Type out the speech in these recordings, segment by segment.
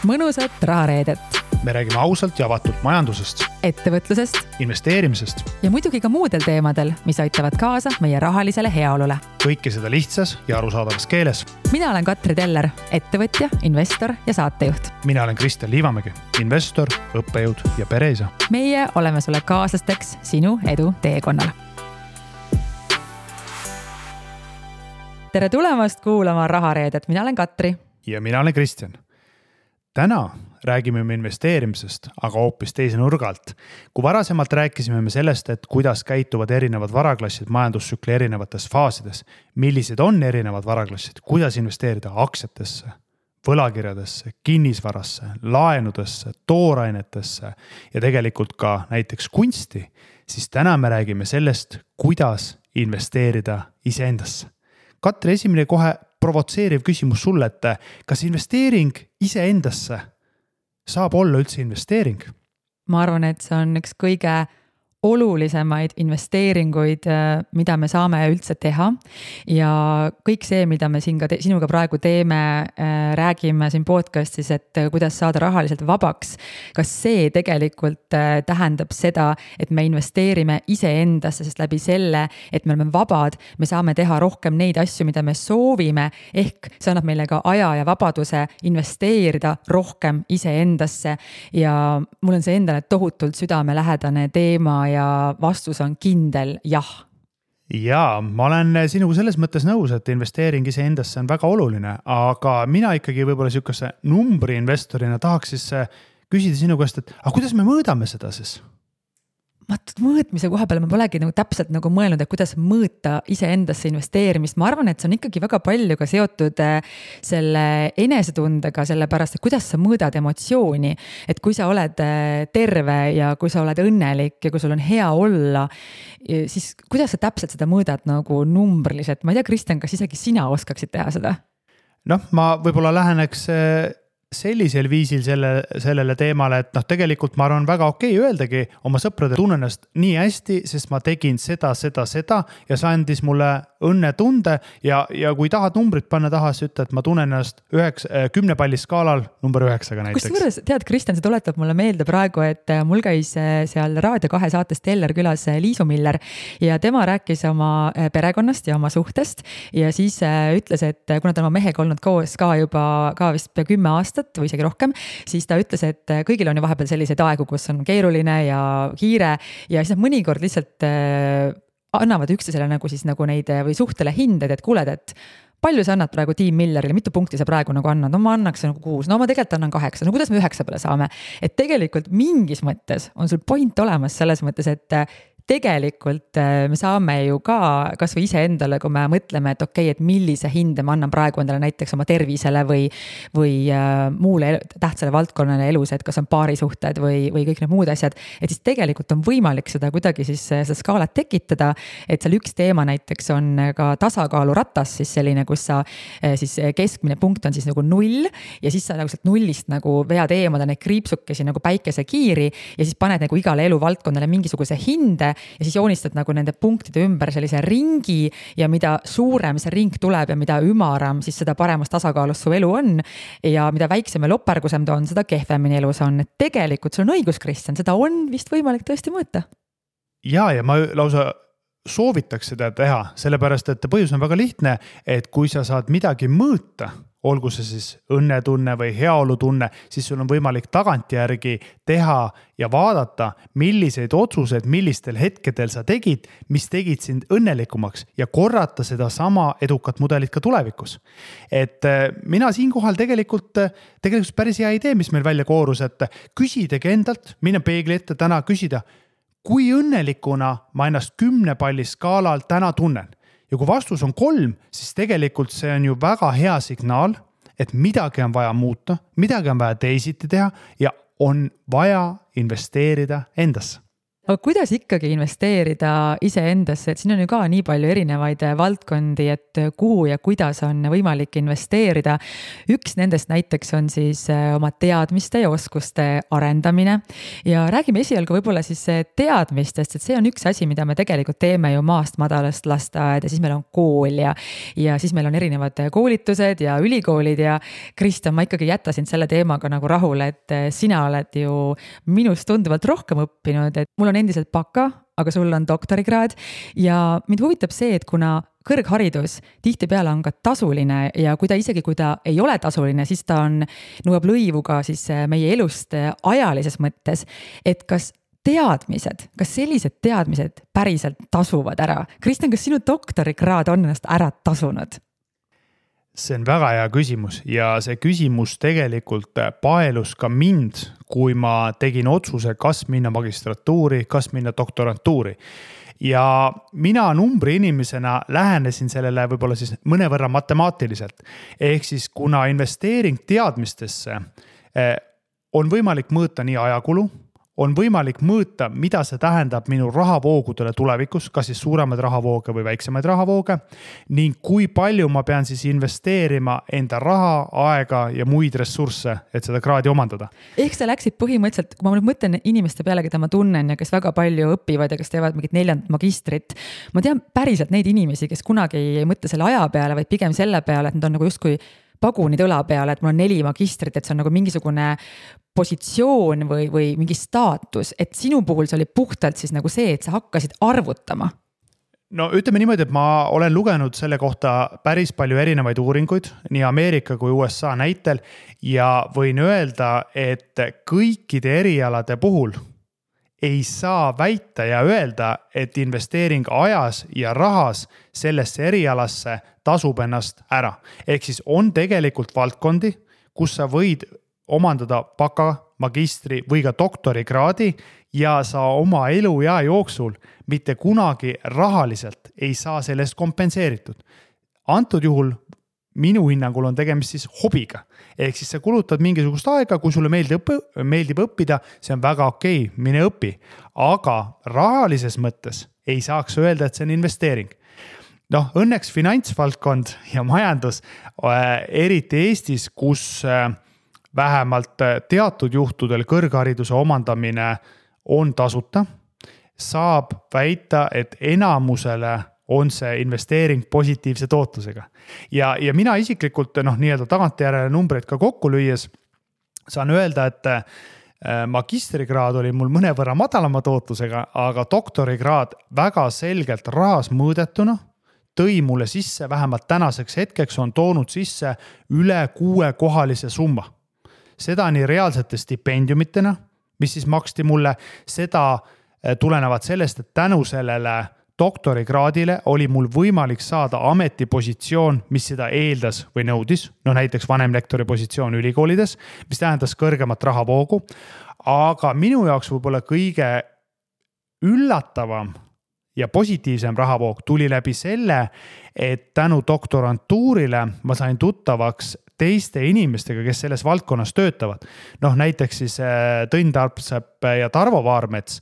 mõnusat rahareedet. Me räägime ausalt ja avatult majandusest, ettevõtlusest investeerimisest ja muidugi ka muudel teemadel, mis aitavad kaasa meie rahalisele heaolule. Kõike seda lihtsas ja arusaadavas keeles. Mina olen Katri Teller, ettevõtja, investor ja saatejuht. Mina olen Kristjan Liivamägi, investor, õppejõud ja pereisa. Meie oleme sulle kaaslasteks sinu edu teekonnal. Tere tulemast kuulama rahareedet. Mina olen Katri. Ja mina olen Kristjan. Täna räägime me investeerimisest, aga hoopis teise nurgalt. Kui varasemalt rääkisime me sellest, et kuidas käituvad erinevad varaklassid majandustsükli erinevates faasides, millised on erinevad varaklassid, kuidas investeerida aktsiatesse, võlakirjadesse, kinnisvarasse, laenudesse, toorainetesse ja tegelikult ka näiteks kunsti, siis täna me räägime sellest, kuidas investeerida iseendasse. Katri, esimene kohe provotseeriv küsimus sulle, et kas investeering iseendasse saab olla üldse investeering? Ma arvan, et see on üks kõige olulisemaid investeeringuid, mida me saame üldse teha ja kõik see, mida me siin ka sinuga praegu teeme, räägime siin podcastis, et kuidas saada rahaliselt vabaks. Kas see tegelikult tähendab seda, et me investeerime iseendasse, sest läbi selle, et me oleme vabad, me saame teha rohkem neid asju, mida me soovime, ehk see annab meile ka aja ja vabaduse investeerida rohkem iseendasse ja mul on see endale tohutult südamelähedane teema ja vastus on kindel jah. Jaa, ma olen sinuga selles mõttes nõus, et investeering iseendasse on väga oluline, aga mina ikkagi võib-olla sihukese numbri investorina tahaks siis küsida sinu käest, et kuidas me mõõdame seda siis? Mõõtmise koha peale ma polegi täpselt mõelnud, et kuidas mõõta iseendasse investeerimist. Ma arvan, et see on ikkagi väga palju ka seotud selle enesetundega, sellepärast, et kuidas sa mõõdad emotsiooni. Et kui sa oled terve ja kui sa oled õnnelik ja kui sul on hea olla, siis kuidas sa täpselt seda mõõdad numbriliselt? Ma ei tea, Kristjan, kas isegi sina oskaksid teha seda? Ma võib-olla läheneks sellisel viisil sellele teemale, et tegelikult ma arvan väga okei öeldagi oma sõprade tunnen ennast nii hästi, sest ma tegin seda ja see andis mulle õnnetunde ja kui tahad numbrit panna taha, siis ütle, et ma tunnen ennast 10 palli skaalal number 9 näiteks. Kusjuures, tead, Kristjan, see tuletab mulle meelde praegu, et mul käis seal Raadio 2 saates Teller külas Liisu Miller ja tema rääkis oma perekonnast ja oma suhtest ja siis ütles, et kuna ta oma mehega olnud koos ka juba vist 10 aastat või isegi rohkem, siis ta ütles, et kõigil on ju vahepeal selliseid aegu, kus on keeruline ja kiire ja siis mõnikord lihtsalt annavad üksteisele neid või suhtele hinded, et kuuled, et palju sa annad praegu Team Millerile, mitu punkti sa praegu annad, ma annaks 6, ma tegelikult annan 8, kuidas me 9 peale saame, et tegelikult mingis mõttes on sul point olemas selles mõttes, et tegelikult me saame ju ka kas või ise endale, kui me mõtleme, et okei, et millise hinde ma annan praegu endale näiteks oma tervisele või muule tähtsale valdkonnale elus, et kas on paarisuhted või kõik need muud asjad, et siis tegelikult on võimalik seda kuidagi siis seda skaalat tekitada, et seal üks teema näiteks on ka tasakaaluratas, siis selline, kus sa siis keskmine punkt on siis 0 ja siis sa sealt 0-st vead eemale neid kriipsukesi päikesekiiri ja siis paned igale eluvaldkonnale mingisuguse hinde ja siis joonistad nende punktide ümber sellise ringi ja mida suurem see ring tuleb ja mida ümaram, siis seda paremas tasakaalus su elu on ja mida väiksem ja lopergusem ta on, seda kehvemini elus on. Et tegelikult sul on õigus, Kristjan, seda on vist võimalik tõesti mõõta. Ja ma lausa soovitaks seda teha, sellepärast, et põhjus on väga lihtne, et kui sa saad midagi mõõta, olgu see siis õnnetunne või heaolutunne, siis sul on võimalik tagantjärgi teha ja vaadata, milliseid otsuseid, millistel hetkedel sa tegid, mis tegid sind õnnelikumaks ja korrata seda sama edukat mudelit ka tulevikus. Et mina siinkohal tegelikult päris hea idee, mis meil välja koorus, et küsidagi endalt, minna peegli ette täna küsida, kui õnnelikuna ma ennast 10 palli skaalal täna tunnen. Ja kui vastus on 3, siis tegelikult see on ju väga hea signaal, et midagi on vaja muuta, midagi on vaja teisiti teha ja on vaja investeerida endasse. aga kuidas ikkagi investeerida iseendasse, et siin on ju ka nii palju erinevaid valdkondi, et kuhu ja kuidas on võimalik investeerida. Üks nendest näiteks on siis oma teadmiste ja oskuste arendamine ja räägime esialgu võib-olla siis teadmistest, et see on üks asi, mida me tegelikult teeme ju maast madalast lasteaed ja siis meil on kool ja siis meil on erinevad koolitused ja ülikoolid ja Kristjan, ma ikkagi jätta sind selle teemaga nagu rahule, et sina oled ju minust tunduvalt rohkem õppinud, et mul on endiselt baka, aga sul on doktorikraad ja mind huvitab see, et kuna kõrgharidus tihtipeale on ka tasuline ja kui ta ei ole tasuline, siis ta nõuab lõivu ka siis meie elust ajalises mõttes, et kas sellised teadmised päriselt tasuvad ära? Kristjan, kas sinu doktorikraad on ennast ära tasunud? See on väga hea küsimus ja see küsimus tegelikult paelus ka mind, kui ma tegin otsuse, kas minna magistratuuri, kas minna doktorantuuri. Ja mina numbri inimesena lähenesin sellele võib-olla siis mõnevõrra matemaatiliselt. Ehk siis kuna investeering teadmistesse on võimalik mõõta nii ajakulu, on võimalik mõõta, mida see tähendab minu rahavoogudele tulevikus, kas siis suuremaid rahavooge või väiksemaid rahavooge, ning kui palju ma pean siis investeerima enda raha, aega ja muid ressursse, et seda kraadi omandada. Ehk sa läksid põhimõtteliselt, kui ma nüüd mõtlen inimeste peale, keda ma tunnen ja kes väga palju õpivad ja kes teevad mingit 4. magistrit, ma tean päriselt neid inimesi, kes kunagi ei mõtle selle aja peale, vaid pigem selle peale, et nad on nagu justkui pagunid õla peale, et mul on 4 magistrit, et see on nagu mingisugune positsioon või mingi staatus, et sinu puhul see oli puhtalt siis nagu see, et sa hakkasid arvutama. No ütleme niimoodi, et ma olen lugenud selle kohta päris palju erinevaid uuringuid, nii Ameerika kui USA näitel ja võin öelda, et kõikide erialade puhul ei saa väita ja öelda, et investeering ajas ja rahas sellesse erialasse tasub ennast ära. Ehk siis on tegelikult valdkondi, kus sa võid omandada baka, magistri või ka doktorikraadi ja sa oma eluea jooksul mitte kunagi rahaliselt ei saa sellest kompenseeritud. Antud juhul minu hinnangul on tegemist siis hobiga. Ehk siis sa kulutad mingisugust aega, kui sulle meeldib õppida, see on väga okei, mine õpi. Aga rahalises mõttes ei saaks öelda, et see on investeering. Õnneks finantsvaldkond ja majandus, eriti Eestis, kus vähemalt teatud juhtudel kõrghariduse omandamine on tasuta, saab väita, et enamusele on see investeering positiivse tootlusega. Ja mina isiklikult nii-öelda tagantjärele numbreid ka kokku lüües saan öelda, et magistrikraad oli mul mõnevõrra madalama tootlusega, aga doktorikraad väga selgelt rahas mõõdetuna tõi mulle sisse, vähemalt tänaseks hetkeks on toonud sisse üle 6-kohalise summa. Seda nii reaalsete stipendiumitena, mis siis maksti mulle, seda tulenevad sellest, et tänu sellele doktorikraadile oli mul võimalik saada ametipositsioon, mis seda eeldas või nõudis, näiteks vanemlektori positsioon ülikoolides, mis tähendas kõrgemat rahavoogu, aga minu jaoks võib-olla kõige üllatavam ja positiivsem rahavoog tuli läbi selle, et tänu doktorantuurile ma sain tuttavaks teiste inimestega, kes selles valdkonnas töötavad. Näiteks siis Tõnn Tarpsepp ja Tarvo Vaarmets,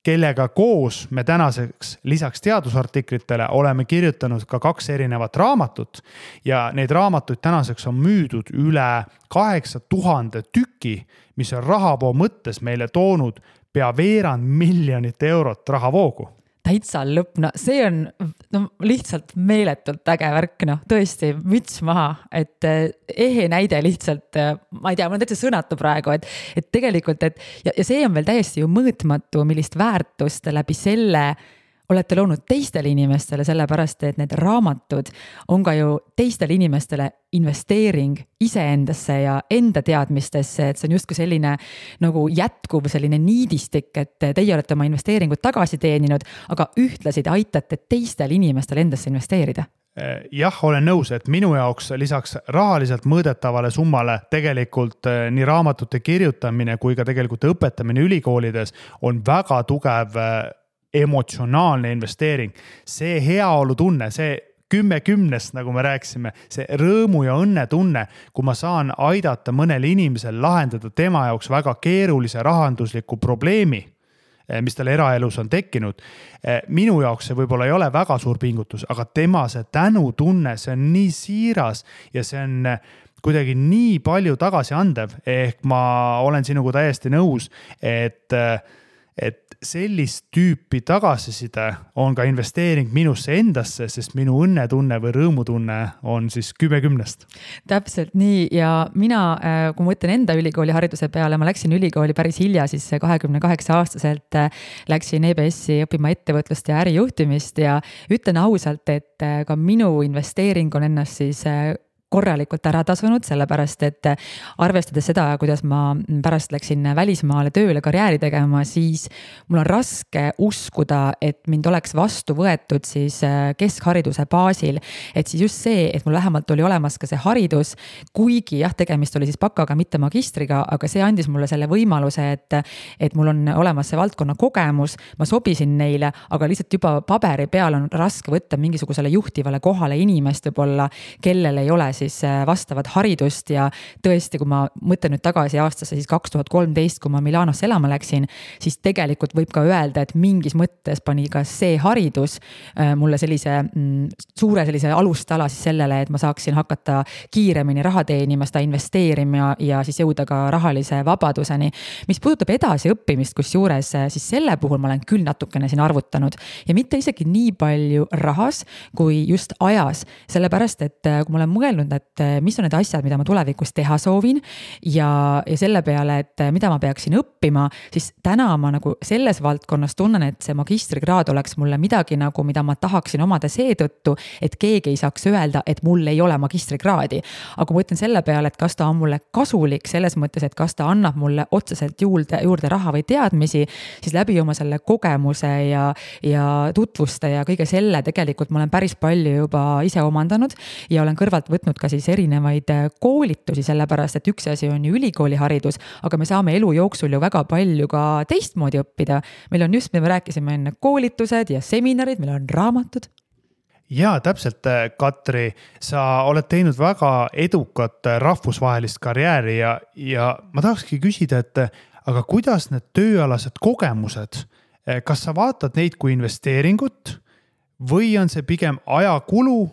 kellega koos me tänaseks lisaks teadusartiklitele oleme kirjutanud ka 2 erinevat raamatut ja neid raamatuid tänaseks on müüdud üle 8000 tüki, mis on rahavoo mõttes meile toonud pea veerand miljonit eurot rahavoogu. Täitsa lõpp, see on lihtsalt meeletult äge värk, tõesti müts maha, et ehe näide lihtsalt, ma ei tea, mul on täitsa sõnatu praegu, et tegelikult, ja see on veel täiesti ju mõõtmatu, millist väärtust läbi selle olete loonud teistele inimestele, sellepärast, et need raamatud on ka ju teistele inimestele investeering iseendasse ja enda teadmistesse, et see on justkui selline nagu jätkuv selline niidistik, et teie olete oma investeeringut tagasi teeninud, aga ühtlasid aitate teistel inimestel endasse investeerida. Jah, olen nõus, et minu jaoks lisaks rahaliselt mõõdetavale summale tegelikult nii raamatute kirjutamine kui ka tegelikult õpetamine ülikoolides on väga tugev emotsionaalne investeering. See heaolu tunne, see 10/10, nagu me rääkisime, see rõõmu ja õnne tunne, kui ma saan aidata mõnel inimesel lahendada tema jaoks väga keerulise rahandusliku probleemi, mis tal eraelus on tekkinud. Minu jaoks see võib-olla ei ole väga suur pingutus, aga tema see tänutunne, see on nii siiras ja see on kuidagi nii palju tagasi andev, ehk ma olen sinuga täiesti nõus, et sellist tüüpi tagasiside on ka investeering minusse endasse, sest minu õnnetunne või rõõmutunne on siis 10/10. Täpselt nii ja mina, kui ma mõtlen enda ülikooli hariduse peale, ma läksin ülikooli päris hilja, siis 28-aastaselt läksin EBS-i õppima ettevõtlust ja ärijuhtimist ja ütlen ausalt, et ka minu investeering on ennast siis korralikult ära tasunud, sellepärast et arvestades seda, kuidas ma pärast läksin välismaale tööle karjääri tegema, siis mul on raske uskuda, et mind oleks vastu võetud siis keskhariduse baasil. Et siis just see, et mul vähemalt oli olemas ka see haridus, kuigi jah, tegemist oli siis bakaga, mitte magistriga, aga see andis mulle selle võimaluse, et mul on olemas see valdkonna kogemus, ma sobisin neile, aga lihtsalt juba paberi peal on raske võtta mingisugusele juhtivale kohale inimest võib-olla, kellel ei ole siis vastavat haridust ja tõesti, kui ma mõtlen nüüd tagasi aastasse siis 2013, kui ma Milanosse elama läksin, siis tegelikult võib ka öelda, et mingis mõttes pani ka see haridus mulle sellise suure sellise alustala siis sellele, et ma saaksin hakata kiiremini raha teenima, seda investeerima ja siis jõuda ka rahalise vabaduseni. Mis puudutab edasi õppimist, kus juures, siis selle puhul ma olen küll natukene siin arvutanud ja mitte isegi nii palju rahas kui just ajas, sellepärast, et kui ma olen mõelnud, et mis on need asjad, mida ma tulevikus teha soovin ja selle peale, et mida ma peaksin õppima, siis täna ma nagu selles valdkonnas tunnen, et see magistrikraad oleks mulle midagi nagu, mida ma tahaksin omada seetõttu, et keegi ei saaks öelda, et mul ei ole magistrikraadi. Aga kui ma ütlen selle peale, et kas ta on mulle kasulik selles mõttes, et kas ta annab mulle otseselt juurde raha või teadmisi, siis läbi oma selle kogemuse ja tutvuste ja kõige selle tegelikult ma olen päris palju juba ise omandanud ja olen kõrvalt võtnud ka siis erinevaid koolitusi, sellepärast, et üks asi on ju ülikooli haridus, aga me saame elu jooksul ju väga palju ka teistmoodi õppida. Meil on just, mida me rääkisime enne, koolitused ja seminarid, meil on raamatud. Jaa, täpselt, Katri, sa oled teinud väga edukat rahvusvahelist karjääri ja ma tahakski küsida, et aga kuidas need tööalased kogemused, kas sa vaatad neid kui investeeringut või on see pigem ajakulu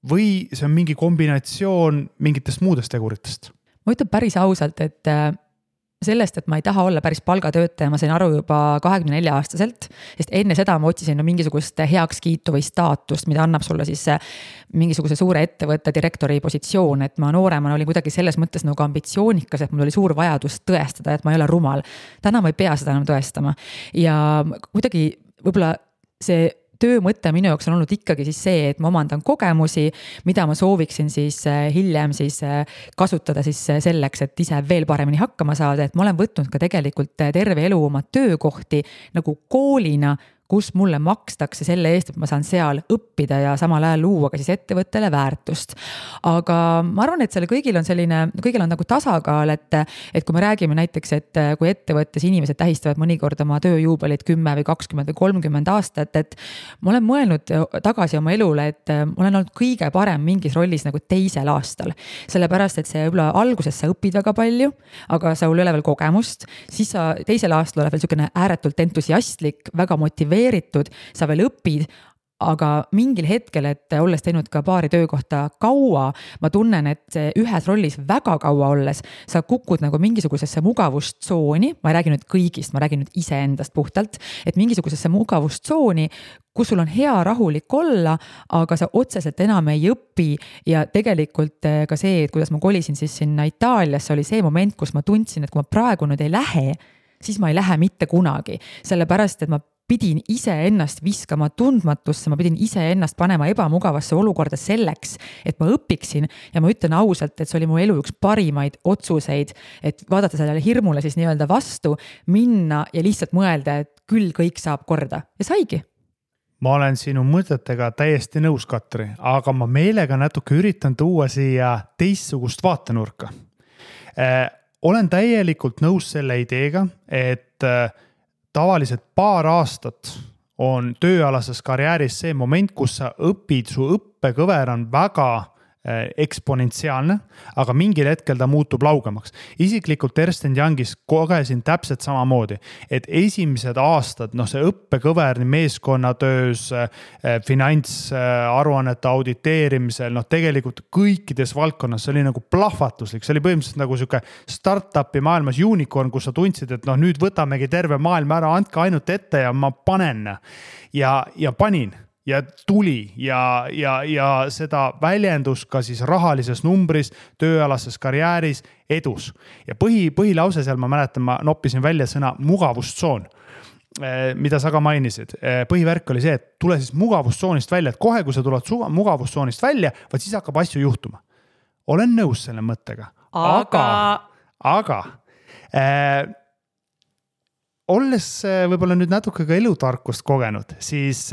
või see on mingi kombinatsioon mingitest muudest teguritest? Ma ütlen päris ausalt, et sellest, et ma ei taha olla päris palgatöötaja, ma sain aru juba 24-aastaselt, sest enne seda ma otsisin mingisugust heakskiitu või staatust, mida annab sulle siis mingisuguse suure ettevõtte direktori positsioon, et ma nooremana olin kuidagi selles mõttes nagu ambitsioonikas, et mul oli suur vajadus tõestada, et ma ei ole rumal. Täna ma ei pea seda enam tõestama ja kuidagi võib-olla see töö mõte minu jaoks on olnud ikkagi siis see, et ma omandan kogemusi, mida ma sooviksin siis hiljem siis kasutada siis selleks, et ise veel paremini hakkama saada, et ma olen võtnud ka tegelikult terve elu oma töökohti nagu koolina, kus mulle makstakse selle eest, et ma saan seal õppida ja samal ajal luua ka siis ettevõttele väärtust. Aga ma arvan, et selle kõigil on nagu tasakaal, et kui me räägime näiteks, et kui ettevõttes inimesed tähistavad mõnikord oma tööjuubelit 10 või 20 või 30 aastat, et ma olen mõelnud tagasi oma elule, et ma olen olnud kõige parem mingis rollis nagu teisel aastal. Sellepärast, et see võib-olla alguses sa õpid väga palju, aga sa ei ole veel kogemust, siis sa teisel aastal oled veel selline ääretult entusiastlik, väga motiveeritud, sa veel õpid, aga mingil hetkel, et olles teinud ka paari töökohta kaua, ma tunnen, et ühes rollis väga kaua olles, sa kukud nagu mingisugusesse mugavustsooni, ma ei räägi nüüd kõigist, ma räägin nüüd iseendast puhtalt, et mingisugusesse mugavustsooni, kus sul on hea rahulik olla, aga sa otseselt enam ei õpi ja tegelikult ka see, et kuidas ma kolisin siis sinna Itaaliasse, oli see moment, kus ma tundsin, et kui ma praegu nüüd ei lähe, siis ma ei lähe mitte kunagi, sellepärast, et ma pidin ise ennast viskama tundmatusse, ma pidin ise ennast panema ebamugavasse olukorda selleks, et ma õpiksin ja ma ütlen ausalt, et see oli mu elu üks parimaid otsuseid, et vaadata sellele hirmule siis nii-öelda vastu, minna ja lihtsalt mõelda, et küll kõik saab korda ja saigi. Ma olen sinu mõtetega täiesti nõus, Katri, aga ma meelega natuke üritan tuua siia teistsugust vaatenurka. Olen täielikult nõus selle ideega, et tavaliselt paar aastat on tööalases karjääris see moment, kus sa õpid, su õppekõver on väga eksponentsiaalne, aga mingil hetkel ta muutub laugemaks. Isiklikult Ernst & Youngis kogesin täpselt samamoodi, et esimesed aastad, see õppekõver nii meeskonnatöös, finantsaruannete auditeerimisel, tegelikult kõikides valdkonnas, see oli nagu plahvatuslik, see oli põhimõtteliselt nagu siuke startupi maailmas unicorn, kus sa tundsid, et nüüd võtamegi terve maailm ära, andke ainult ette ja ma panen ja panin. Ja tuli ja seda väljendus ka siis rahalises numbris, tööalases karjääris, edus. Ja põhilause seal, ma mäletan, ma noppisin välja sõna mugavustsoon, mida sa ka mainisid. Põhivärk oli see, et tule siis mugavustsoonist välja, et kohe, kui sa tuled mugavustsoonist välja, siis hakkab asju juhtuma. Olen nõus selle mõttega. Aga olles võib-olla nüüd natuke ka elutarkust kogenud, siis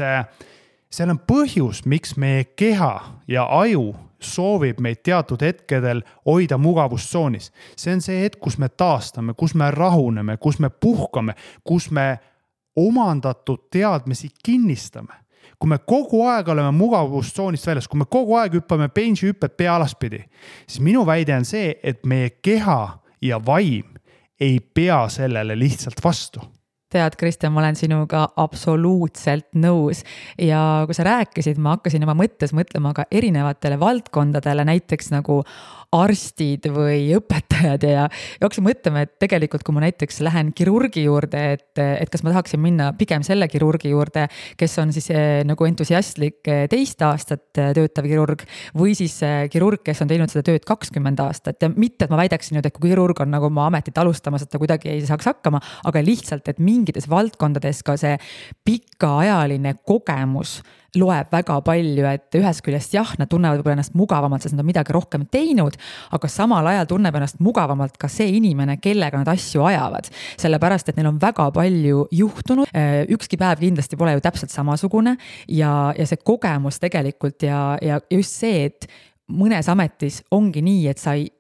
seal on põhjus, miks meie keha ja aju soovib meid teatud hetkedel hoida mugavustsoonis. See on see hetk, kus me taastame, kus me rahuneme, kus me puhkame, kus me omandatud teadmisi kinnistame. Kui me kogu aeg oleme mugavustsoonist väljas, kui me kogu aeg hüppame benji hüpped pea alaspidi, siis minu väide on see, et meie keha ja vaim ei pea sellele lihtsalt vastu. Tead, Kristjan, ma olen sinuga absoluutselt nõus ja kui sa rääkisid, ma hakkasin oma mõttes mõtlema ka erinevatele valdkondadele, näiteks nagu arstid või õpetajad ja hakkasin mõtlema, et tegelikult kui ma näiteks lähen kirurgi juurde, et kas ma tahaksin minna pigem selle kirurgi juurde, kes on siis nagu entusiastlik 2 aastat töötav kirurg või siis kirurg, kes on teinud seda tööd 20 aastat ja mitte, et ma väidaksin nüüd, et kui kirurg on nagu oma ametit alustamas, et ta kuidagi ei saaks hakkama, aga lihtsalt, et mingites valdkondades ka see pikaajaline kogemus loeb väga palju, et ühest küljest jah, nad tunnevad võib-olla ennast mugavamalt, sest nad on midagi rohkem teinud, aga samal ajal tunneb ennast mugavamalt ka see inimene, kellega nad asju ajavad. Sellepärast, et neil on väga palju juhtunud, ükski päev kindlasti pole ju täpselt samasugune ja see kogemus tegelikult ja just see, et mõnes ametis ongi nii, et sa ei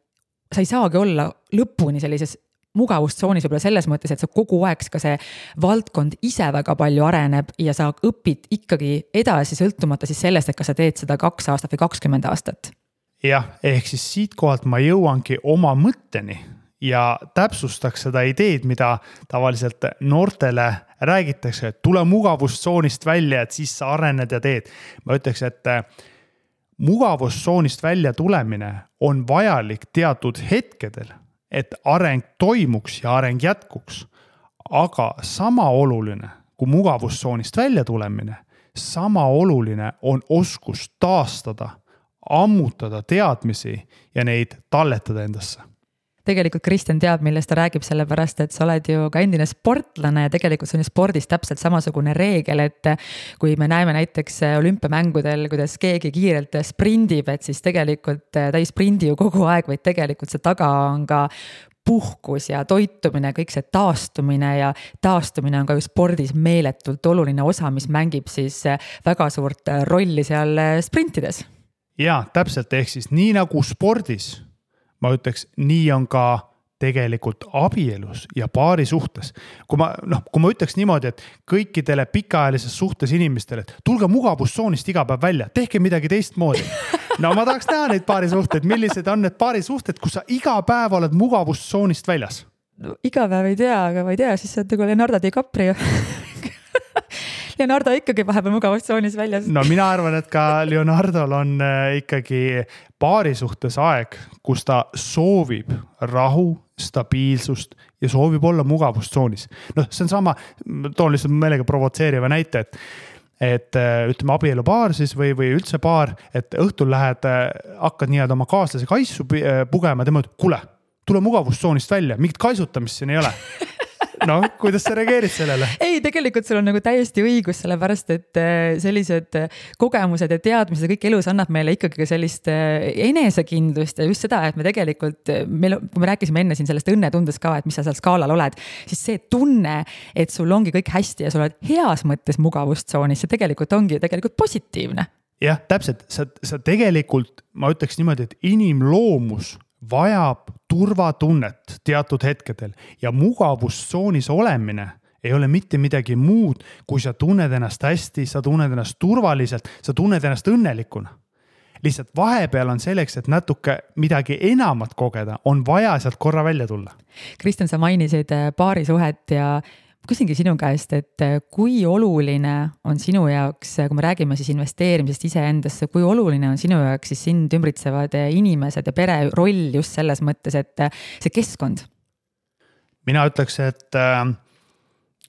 saagi olla lõpuni sellises mugavustsoonis võib-olla selles mõttes, et sa kogu aeg ka see valdkond ise väga palju areneb ja sa õpid ikkagi edasi sõltumata siis sellest, et kas sa teed seda 2 aastat või 20 aastat. Jah, ehk siis siit kohalt ma jõuangi oma mõtteni ja täpsustaks seda ideed, mida tavaliselt noortele räägitakse, et tule mugavustsoonist välja, et siis sa arened ja teed. Ma ütleks, et mugavustsoonist välja tulemine on vajalik teatud hetkedel, et areng toimuks ja areng jätkuks. Aga sama oluline kui mugavustsoonist välja tulemine, sama oluline on oskus taastada, ammutada teadmisi ja neid talletada endasse. Tegelikult Kristjan teab, millest ta räägib, sellepärast, et sa oled ju ka endine sportlane ja tegelikult see on spordis täpselt samasugune reegel, et kui me näeme näiteks olümpiamängudel, kuidas keegi kiirelt sprindib, et siis tegelikult ta ei sprindi ju kogu aeg, vaid tegelikult see taga on ka puhkus ja toitumine, kõik see taastumine ja taastumine on ka ju spordis meeletult oluline osa, mis mängib siis väga suurt rolli seal sprintides. Ja, täpselt, ehk siis nii nagu spordis, ma ütleks, nii on ka tegelikult abielus ja paari suhtes. Kui ma ütleks niimoodi, et kõikidele pikaajalises suhtes inimestele, et tulge mugavustsoonist iga päev välja, tehke midagi teistmoodi. No ma tahaks näha neid paari suhted, millised on need paari suhted, kus sa iga päev oled mugavustsoonist väljas? No, iga päev ei tea, aga ma ei tea, siis on nagu Leonardo DiCaprio. Leonardo ikkagi vahepeal mugavustsoonis väljas. No mina arvan, et ka Leonardol on ikkagi paari suhtes aeg, kus ta soovib rahu, stabiilsust ja soovib olla mugavustsoonis. See on sama, toon lihtsalt meelega provotseeriva näite, et ütleme abielupaar siis või üldse paar, et õhtul lähed, hakkad nii-öelda oma kaaslase kaisu pugema, tema ütleb, kuule, tule mugavustsoonist välja, mingit kaisutamist siin ei ole. No, kuidas sa reageerid sellele? Ei, tegelikult sul on nagu täiesti õigus, sellepärast, et sellised kogemused ja teadmised kõik elus annab meile ikkagi sellist enesekindlust ja just seda, et me tegelikult, kui me rääkisime enne siin sellest õnnetundes ka, et mis sa seal skaalal oled, siis see tunne, et sul ongi kõik hästi ja sul oled heas mõttes mugavustsoonis, see tegelikult ongi tegelikult positiivne. Jah, täpselt, sa tegelikult, ma ütleks niimoodi, et inimloomus vajab turvatunnet teatud hetkedel ja mugavustsoonis olemine ei ole mitte midagi muud, kui sa tunned ennast hästi, sa tunned ennast turvaliselt, sa tunned ennast õnnelikuna. lihtsalt vahepeal on selleks, et natuke midagi enamat kogeda, on vaja sealt korra välja tulla. Kristjan, sa mainisid paarisuhet ja küsingi sinu käest, et kui oluline on sinu jaoks, kui me räägime siis investeerimisest iseendasse, kui oluline on sinu jaoks siis sind ümbritsevad inimesed ja pere roll just selles mõttes, et see keskkond? Mina ütleks, et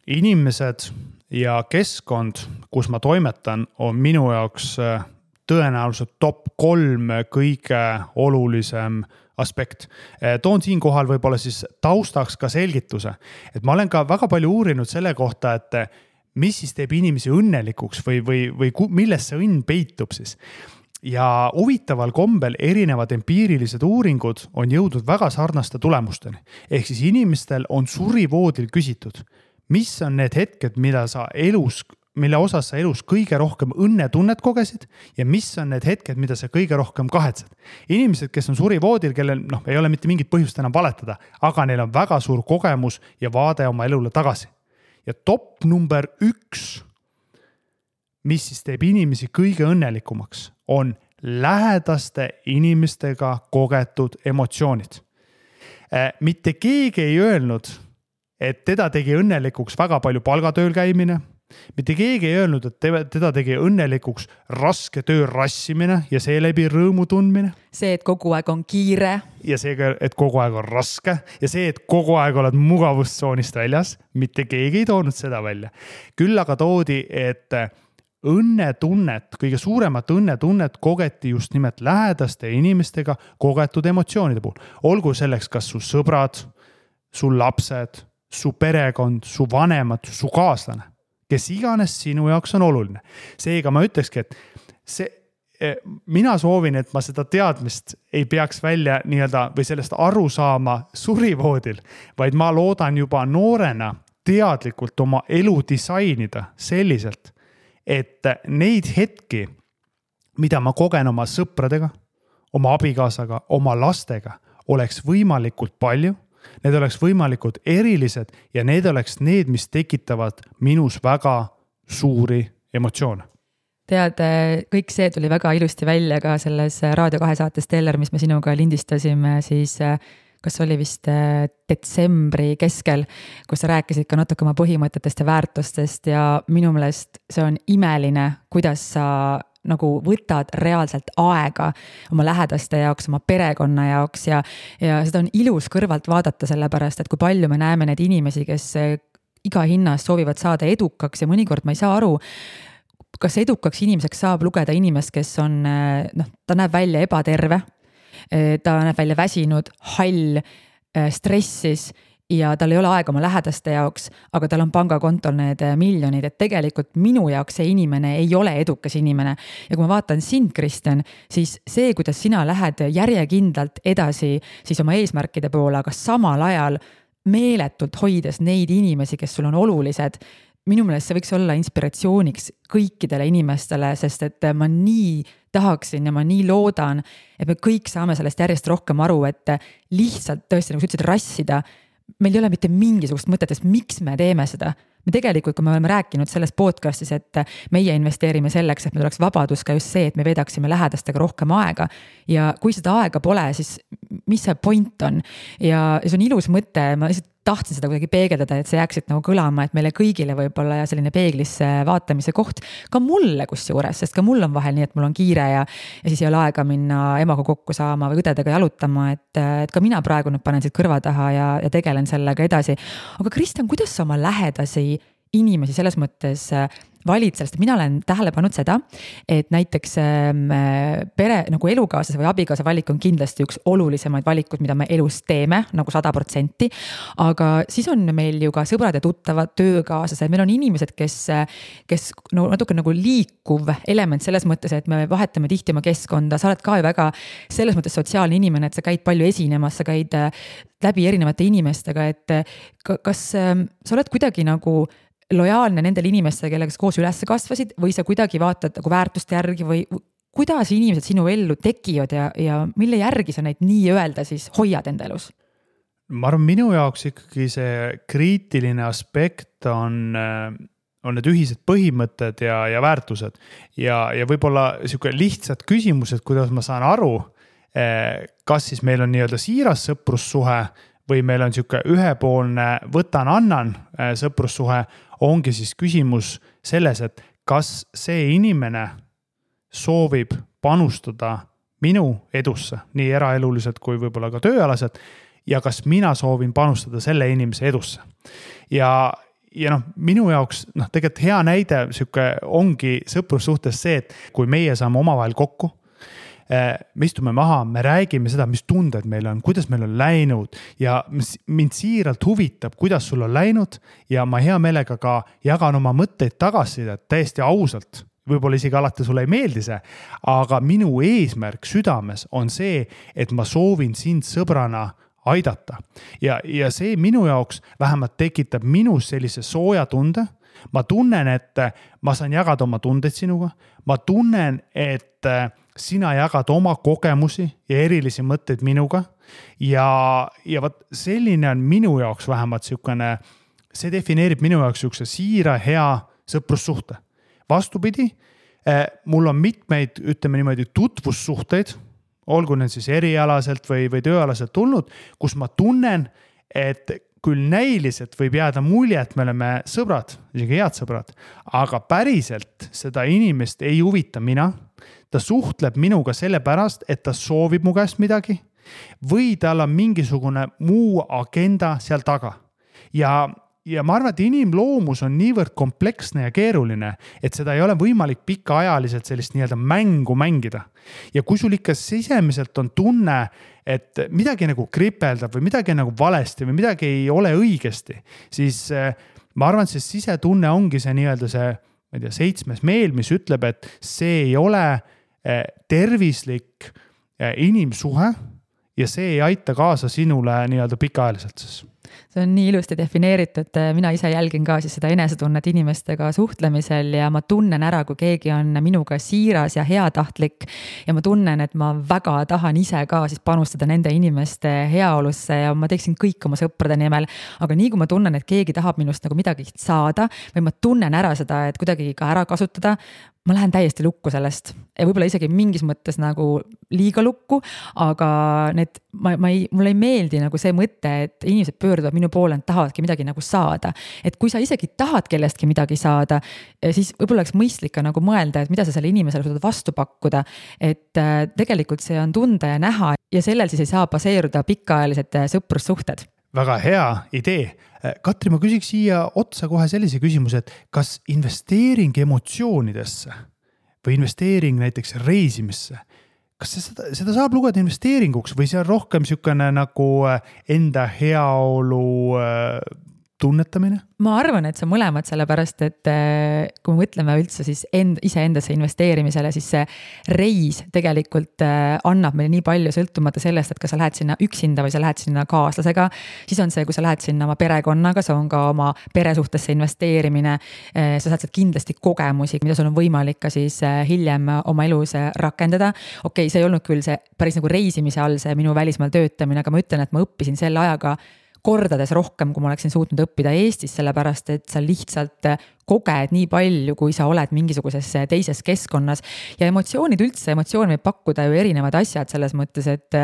inimesed ja keskkond, kus ma toimetan, on minu jaoks tõenäoliselt top 3 kõige olulisem aspekt. Toon siinkohal võib-olla siis taustaks ka selgituse, et ma olen ka väga palju uurinud selle kohta, et mis siis teeb inimesi õnnelikuks või milles see õnn peitub siis. Ja huvitaval kombel erinevad empiirilised uuringud on jõudnud väga sarnaste tulemusteni. Ehk siis inimestel on surivoodil küsitud, mis on need hetked, mille osas sa elus kõige rohkem õnnetunnet kogesid ja mis on need hetked, mida sa kõige rohkem kahetsed. Inimesed, kes on surivoodil, kellel ei ole mitte mingit põhjust enam valetada, aga neil on väga suur kogemus ja vaade oma elule tagasi. Ja top number 1, mis siis teeb inimesi kõige õnnelikumaks, on lähedaste inimestega kogetud emotsioonid. Mitte keegi ei öelnud, et teda tegi õnnelikuks väga palju palgatööl käimine. Mitte keegi ei öelnud, et teda tegi õnnelikuks raske töö rassimine ja seeläbi rõõmu tundmine. See, et kogu aeg on kiire. Ja see, et kogu aeg on raske. Ja see, et kogu aeg oled mugavustsoonist väljas. Mitte keegi ei toonud seda välja. Küll aga toodi, et õnnetunnet, kõige suuremat õnnetunnet kogeti just nimelt lähedaste inimestega kogetud emotsioonide puhul. Olgu selleks kas su sõbrad, su lapsed, su perekond, su vanemad, su kaaslane, kes iganes sinu jaoks on oluline. Seega ma ütlekski, et mina soovin, et ma seda teadmist ei peaks välja või sellest aru saama surivoodil, vaid ma loodan juba noorena teadlikult oma elu disainida selliselt, et neid hetki, mida ma kogen oma sõpradega, oma abikaasaga, oma lastega, oleks võimalikult palju, need oleks võimalikult erilised ja need oleks need, mis tekitavad minus väga suuri emotsioone. Tead, kõik see tuli väga ilusti välja ka selles Raadio 2 saates Teller, mis me sinuga lindistasime siis kas oli vist detsembri keskel, kus sa rääkisid ka natuke oma põhimõtetest ja väärtustest ja minu meelest see on imeline, kuidas sa nagu võtad reaalselt aega oma lähedaste jaoks, oma perekonna jaoks ja seda on ilus kõrvalt vaadata sellepärast, et kui palju me näeme neid inimesi, kes iga hinnas soovivad saada edukaks ja mõnikord ma ei saa aru, kas edukaks inimeseks saab lugeda inimest, kes on, ta näeb välja ebaterve, ta näeb välja väsinud, hall, stressis ja tal ei ole aega oma lähedaste jaoks, aga tal on pangakontol need miljonid, et tegelikult minu jaoks see inimene ei ole edukas inimene. Ja kui ma vaatan sind, Kristjan, siis see, kuidas sina lähed järjekindlalt edasi siis oma eesmärkide poole, aga samal ajal meeletult hoides neid inimesi, kes sul on olulised, minu meelest see võiks olla inspiratsiooniks kõikidele inimestele, sest et ma nii tahaksin ja ma nii loodan, et me kõik saame sellest järjest rohkem aru, et lihtsalt tõesti, nagu sa ütlesid, rassida, meil ei ole mitte mingisugust mõtetest, miks me teeme seda. Me tegelikult, kui me oleme rääkinud selles podcastis, et meie investeerime selleks, et meil oleks vabadus ka just see, et me vedaksime lähedastega rohkem aega ja kui seda aega pole, siis mis see point on ja see on ilus mõte, ma lihtsalt tahtsin seda kuidagi peegeldada, et see jääksid nagu kõlama, et meile kõigile võib-olla ja selline peeglisse vaatamise koht, ka mulle kusjuures, sest ka mul on vahel nii, et mul on kiire ja siis ei ole aega minna emaga kokku saama või õdedega jalutama, et ka mina praegu nüüd panen siit kõrva taha ja tegelen sellega edasi. Aga Kristjan, kuidas sa oma lähedasi inimesi selles mõttes valid sellest, mina olen tähele pannud seda, et näiteks pere nagu elukaaslase või abikaasa valik on kindlasti üks olulisemaid valikud, mida me elus teeme nagu 100%, aga siis on meil ju ka sõbrad ja tuttavad, töökaaslased, meil on inimesed, kes no, natuke nagu liikuv element selles mõttes, et me vahetame tihti oma keskkonda, sa oled ka ju väga selles mõttes sotsiaalne inimene, et sa käid palju esinemas, sa käid läbi erinevate inimestega, et kas sa oled kuidagi nagu lojaalne nendele inimestele, kellega koos üles kasvasid või sa kuidagi vaatad nagu väärtuste järgi või kuidas inimesed sinu ellu tekivad ja mille järgi sa neid nii öelda siis hoiad enda elus? Ma arvan, minu jaoks ikkagi see kriitiline aspekt on on need ühised põhimõtted ja väärtused ja võib-olla niisugune lihtsad küsimused, kuidas ma saan aru, kas siis meil on nii-öelda siiras sõprussuhe või meil on niisugune ühepoolne võtan-annan sõprussuhe, ongi siis küsimus selles, et kas see inimene soovib panustada minu edusse, nii eraeluliselt kui võib-olla ka tööalaselt, ja kas mina soovin panustada selle inimese edusse. Ja minu jaoks tegelikult hea näide ongi sõprussuhtes see, et kui meie saame omavahel kokku, me istume maha, me räägime seda, mis tunded meil on, kuidas meil on läinud ja mind siiralt huvitab, kuidas sul on läinud ja ma hea meelega ka jagan oma mõtteid tagasisida täiesti ausalt. Võib-olla isegi alati sulle ei meeldi see, aga minu eesmärk südames on see, et ma soovin sind sõbrana aidata. Ja see minu jaoks vähemalt tekitab minus sellise sooja tunde. Ma tunnen, et ma saan jagada oma tundeid sinuga. Ma tunnen, et sina jagad oma kogemusi ja erilisi mõtteid minuga. Ja selline on minu jaoks vähemalt siukene, see defineerib minu jaoks siukse siira hea sõprussuhte. Vastupidi, mul on mitmeid, ütleme niimoodi, tutvussuhteid, olgu need siis erialaselt või tööalaselt tulnud, kus ma tunnen, et küll näiliselt võib jääda mulje, et me oleme sõbrad, isegi head sõbrad, aga päriselt seda inimest ei huvita mina. Ta suhtleb minuga sellepärast, et ta soovib mu käest midagi või tal on mingisugune muu agenda seal taga. Ja ma arvan, et inimloomus on niivõrd kompleksne ja keeruline, et seda ei ole võimalik pikaajaliselt sellist nii-öelda mängu mängida. Ja kui sul ikka sisemiselt on tunne, et midagi nagu kripeldab või midagi nagu valesti või midagi ei ole õigesti, siis ma arvan, et see sisetunne ongi see nii-öelda see, ma ei tea, 7. meel, mis ütleb, et see ei ole tervislik inimsuhe ja see ei aita kaasa sinule nii-öelda pikaajaliselt siis. See on nii ilusti defineeritud, mina ise jälgin ka siis seda enesetunnet inimestega suhtlemisel ja ma tunnen ära, kui keegi on minuga siiras ja heatahtlik ja ma tunnen, et ma väga tahan ise ka siis panustada nende inimeste heaolusse ja ma teeksin kõik oma sõprade nimel, aga nii kui ma tunnen, et keegi tahab minust nagu midagi saada või ma tunnen ära seda, et kuidagi ka ära kasutada, ma lähen täiesti lukku sellest ja võib-olla isegi mingis mõttes nagu liiga lukku, aga mulle ei meeldi nagu see mõte, et inimesed pöörduvad minu poole, et tahavadki midagi nagu saada. Et kui sa isegi tahad kellestki midagi saada, siis võib-olla oleks mõistlik ka nagu mõelda, et mida sa selle inimesele suudad vastu pakkuda, et tegelikult see on tunda ja näha ja sellel siis ei saa baseeruda pikaajalised sõprussuhted. Väga hea idee. Katri, ma küsiks siia otsa kohe sellise küsimuse, et kas investeering emotsioonidesse või investeering näiteks reisimisse, kas seda saab lugeda investeeringuks või see on rohkem niisugune nagu enda heaolu tunnetamine? Ma arvan, et see on mõlemad, sellepärast, et kui me mõtleme üldse siis iseendasse investeerimisele, siis see reis tegelikult annab meile nii palju sõltumata sellest, et kas sa lähed sinna üksinda või sa lähed sinna kaaslasega, siis on see, kui sa lähed sinna oma perekonnaga, see on ka oma peresuhtesse investeerimine, sa saad sealt kindlasti kogemusi, mida sul on võimalik ka siis hiljem oma elus rakendada. Okei, see ei olnud küll see päris nagu reisimise all see minu välismaal töötamine, aga ma ütlen, et ma õppisin selle ajaga kordades rohkem, kui ma oleksin suutnud õppida Eestis, sellepärast et sa lihtsalt koged nii palju, kui sa oled mingisuguses teises keskkonnas ja emotsioone võib pakkuda ju erinevad asjad selles mõttes, et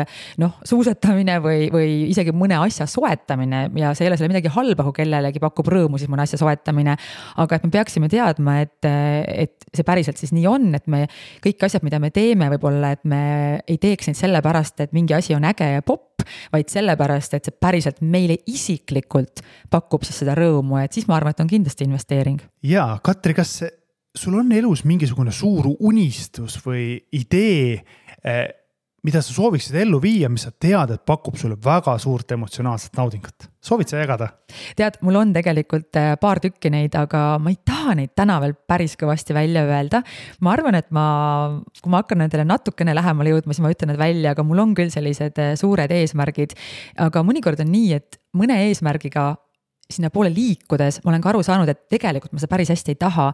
suusatamine või isegi mõne asja soetamine ja see ei ole selle midagi halba, kui kellelegi pakub rõõmu siis mõne asja soetamine, aga et me peaksime teadma, et see päriselt siis nii on, et me kõik asjad, mida me teeme võib-olla, et me ei teeks neid sellepärast, et mingi asi on äge ja popp, vaid sellepärast, et see päriselt meile isiklikult pakub siis seda rõõmu, et siis ma arvan, et on kindlasti investeering. Ja, Katri, kas sul on elus mingisugune suur unistus või idee, mida sa sooviksid ellu viia, mis sa tead, et pakub sulle väga suurt emotsionaalset naudingut? Soovid sa jagada? Tead, mul on tegelikult paar tükki neid, aga ma ei taha neid täna veel päris kõvasti välja öelda. Ma arvan, et kui ma hakkan nendele natukene lähemale jõudma, siis ma ütlen need välja, aga mul on küll sellised suured eesmärgid. Aga mõnikord on nii, et mõne eesmärgiga sinna poole liikudes ma olen ka aru saanud, et tegelikult ma seda päris hästi ei taha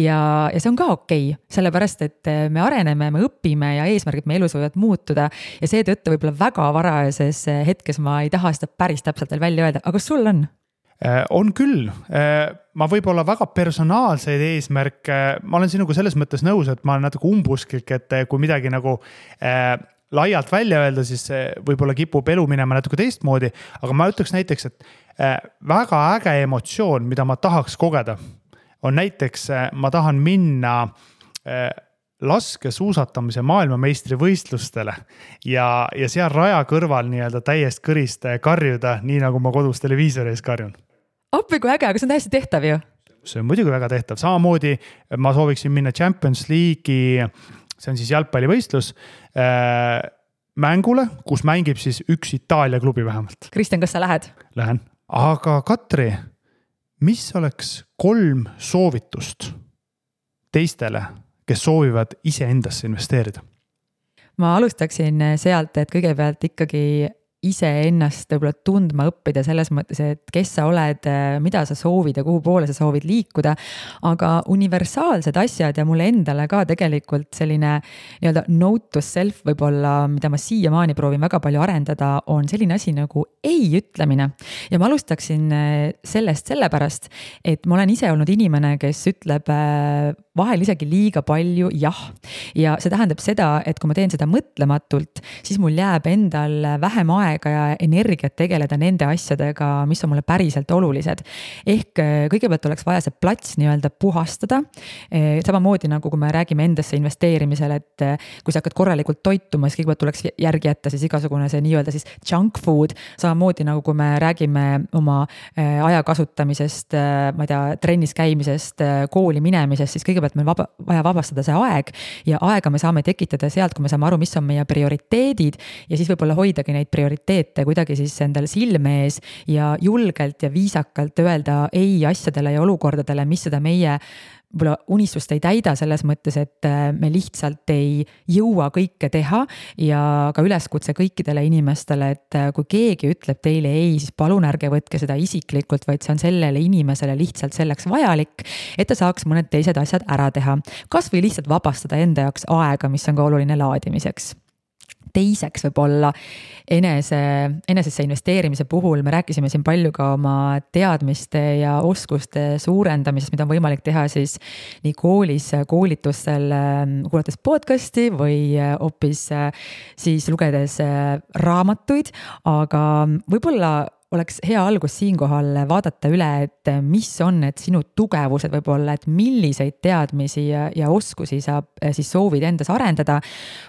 ja see on ka okei, sellepärast, et me areneme, me õpime ja eesmärgid me elus võivad muutuda ja seetõttu võib-olla väga varajases hetkes ma ei taha seda päris täpselt veel välja öelda, aga kas sul on? On küll, ma võib-olla väga personaalseid eesmärke, ma olen sinuga selles mõttes nõus, et ma olen natuke umbusklik, et kui midagi nagu laialt välja öelda, siis võib-olla kipub elu minema natuke teistmoodi, aga ma ütleks näiteks, et väga äge emotsioon, mida ma tahaks kogeda, on näiteks, ma tahan minna laskesuusatamise maailmameistri võistlustele ja seal raja kõrval nii-öelda täiest kõrist karjuda, nii nagu ma kodus televiisori ees karjun. Appi kui äge, aga see on täiesti tehtav ju. See on muidugi väga tehtav. Samamoodi ma sooviksin minna Champions League'i, see on siis jalgpallivõistlus, mängule, kus mängib siis üks Itaalia klubi vähemalt. Kristjan, kas sa lähed? Lähen. Aga Katri, mis oleks 3 soovitust teistele, kes soovivad ise endasse investeerida? Ma alustaksin sealt, et kõigepealt ikkagi ise ennast võib-olla tundma õppida selles mõttes, et kes sa oled, mida sa soovid ja kuhu poole sa soovid liikuda, aga universaalsed asjad ja mulle endale ka tegelikult selline nii-öelda note to self võib-olla, mida ma siiamaani proovin väga palju arendada, on selline asi nagu ei ütlemine. Ja ma alustaksin sellest sellepärast, et ma olen ise olnud inimene, kes ütleb vahel isegi liiga palju jah. Ja see tähendab seda, et kui ma teen seda mõtlematult, siis mul jääb endal vähem aega ja energiat tegeleda nende asjadega, mis on mulle päriselt olulised. Ehk kõigepealt oleks vaja see plats nii-öelda puhastada. Samamoodi nagu kui me räägime endasse investeerimisel, et kui sa hakkad korralikult toituma, siis kõigepealt tuleks järgi jätta siis igasugune see nii-öelda siis junk food. Samamoodi nagu kui me räägime oma aja kasutamisest, ma ei tea, trennis käimisest, kooli minemisest, siis kõigepealt meil vaja vabastada see aeg ja aega me saame tekitada sealt, kui me saame aru, mis on meie prioriteedid ja siis võib-olla hoidagi neid prioriteete kuidagi siis endale silme ees ja julgelt ja viisakalt öelda ei asjadele ja olukordadele, mis seda meie unistust ei täida selles mõttes, et me lihtsalt ei jõua kõike teha ja ka üleskutse kõikidele inimestele, et kui keegi ütleb teile ei, siis palun ärge võtke seda isiklikult, vaid see on sellele inimesele lihtsalt selleks vajalik, et ta saaks mõned teised asjad ära teha. Kas või lihtsalt vabastada enda jaoks aega, mis on ka oluline laadimiseks. Teiseks võib-olla enesesse investeerimise puhul me rääkisime siin palju ka oma teadmiste ja oskuste suurendamisest, mida on võimalik teha siis nii koolis, koolitustel, kuulates podcasti või hoopis siis lugedes raamatuid, aga võib-olla oleks hea algus siinkohal vaadata üle, et mis on need sinu tugevused võib-olla, et milliseid teadmisi ja oskusi sa siis soovid endas arendada.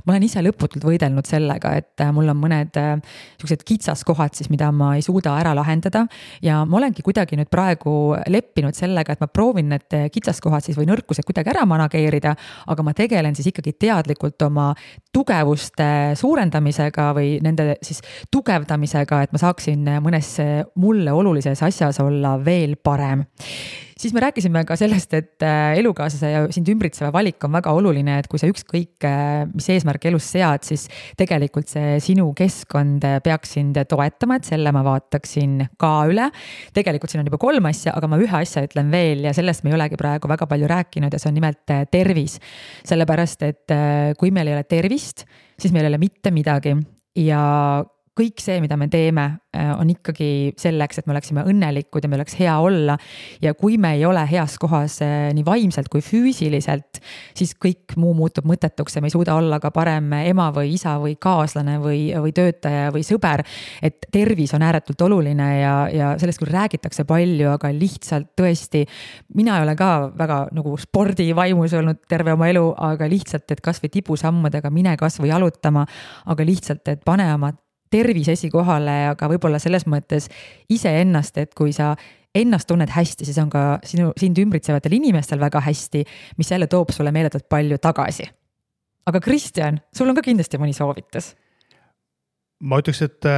Ma olen ise lõputult võidelnud sellega, et mul on mõned sellised kitsaskohad siis, mida ma ei suuda ära lahendada ja ma olengi kuidagi nüüd praegu leppinud sellega, et ma proovin need kitsaskohad siis või nõrkused kuidagi ära manageerida, aga ma tegelen siis ikkagi teadlikult oma tugevuste suurendamisega või nende siis tugevdamisega, et ma saaksin mõnes mulle olulises asjas olla veel parem. Siis me rääkisime ka sellest, et elukaaslase ja sind ümbritseva valik on väga oluline, et kui sa ükskõik mis eesmärk elus sead, siis tegelikult see sinu keskkond peaks sind toetama, et selle ma vaataksin ka üle. Tegelikult siin on juba 3 asja, aga ma ühe asja ütlen veel ja sellest me ei olegi praegu väga palju rääkinud ja see on nimelt tervis. Sellepärast, et kui meil ei ole tervist, siis meil ei ole mitte midagi ja kõik see, mida me teeme, on ikkagi selleks, et me oleksime õnnelikud ja me oleks hea olla. Ja kui me ei ole heas kohas nii vaimselt kui füüsiliselt, siis kõik muu muutub mõttetuks ja me ei suuda olla ka parem ema või isa või kaaslane või töötaja või sõber. Et tervis on ääretult oluline ja sellest küll räägitakse palju, aga lihtsalt tõesti, mina ei ole ka väga nagu spordivaimus olnud terve oma elu, aga lihtsalt, et kas või tibusammudega mine kas või jalutama, aga lihtsalt, et pane oma tervis esikohale, aga võib-olla selles mõttes iseennast, et kui sa ennast tunned hästi, siis on ka sind ümbritsevatel inimestel väga hästi, mis jälle toob sulle meeletult palju tagasi. Aga Kristjan, sul on ka kindlasti mõni soovitus. Ma ütleks, et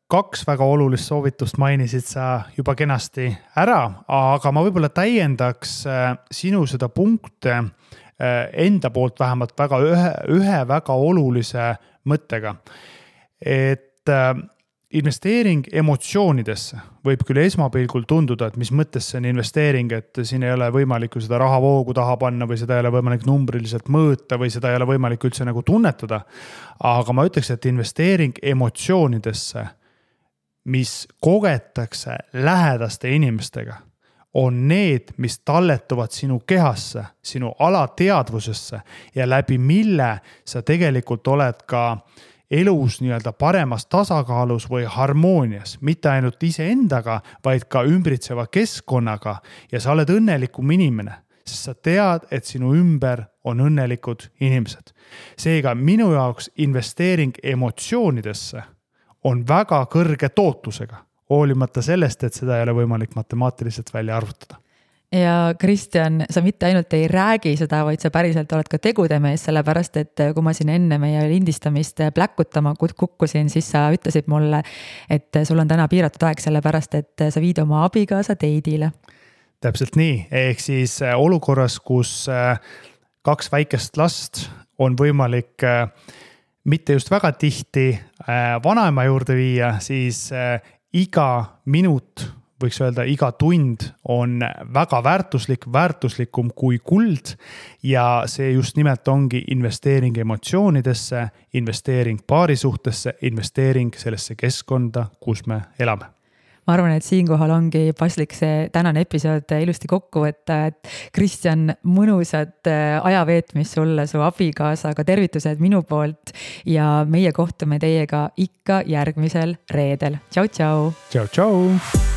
2 väga olulist soovitust mainisid sa juba kenasti ära, aga ma võib-olla täiendaks sinu seda punkte enda poolt vähemalt ühe väga olulise mõttega. Et investeering emotsioonidesse võib küll esmapilgul tunduda, et mis mõttes see on investeering, et siin ei ole võimalik seda rahavoogu taha panna või seda ei ole võimalik numbriliselt mõõta või seda ei ole võimalik üldse nagu tunnetada. Aga ma ütleks, et investeering emotsioonidesse mis kogetakse lähedaste inimestega, on need, mis talletuvad sinu kehasse, sinu alateadvusesse ja läbi mille sa tegelikult oled ka elus nii-öelda paremas tasakaalus või harmoonias, mitte ainult iseendaga, vaid ka ümbritseva keskkonnaga ja sa oled õnnelikum inimene, sest sa tead, et sinu ümber on õnnelikud inimesed. Seega minu jaoks investeering emotsioonidesse on väga kõrge tootlusega, hoolimata sellest, et seda ei ole võimalik matemaatiliselt välja arvutada. Ja Kristjan, sa mitte ainult ei räägi seda, vaid sa päriselt oled ka tegude mees, sellepärast et kui ma siin enne meie lindistamist pläkkutama kukkusin, siis sa ütlesid mulle, et sul on täna piiratud aeg, sellepärast et sa viid oma abikaasa date'ile. Täpselt nii, ehk siis olukorras, kus 2 väikest last on võimalik mitte just väga tihti vanaema juurde viia, siis iga minut, võiks öelda iga tund on väga väärtuslikum kui kuld ja see just nimelt ongi investeering emotsioonidesse, investeering paarisuhtesse, investeering sellesse keskkonda, kus me elame. Ma arvan, et siinkohal ongi paslik see tänane episood ilusti kokku võtta, et Kristjan, mõnusat ajaveetmist sulle, su abikaasaga, tervitused minu poolt ja meie kohtume teiega ikka järgmisel reedel. Tšau, tšau! Tšau, tšau!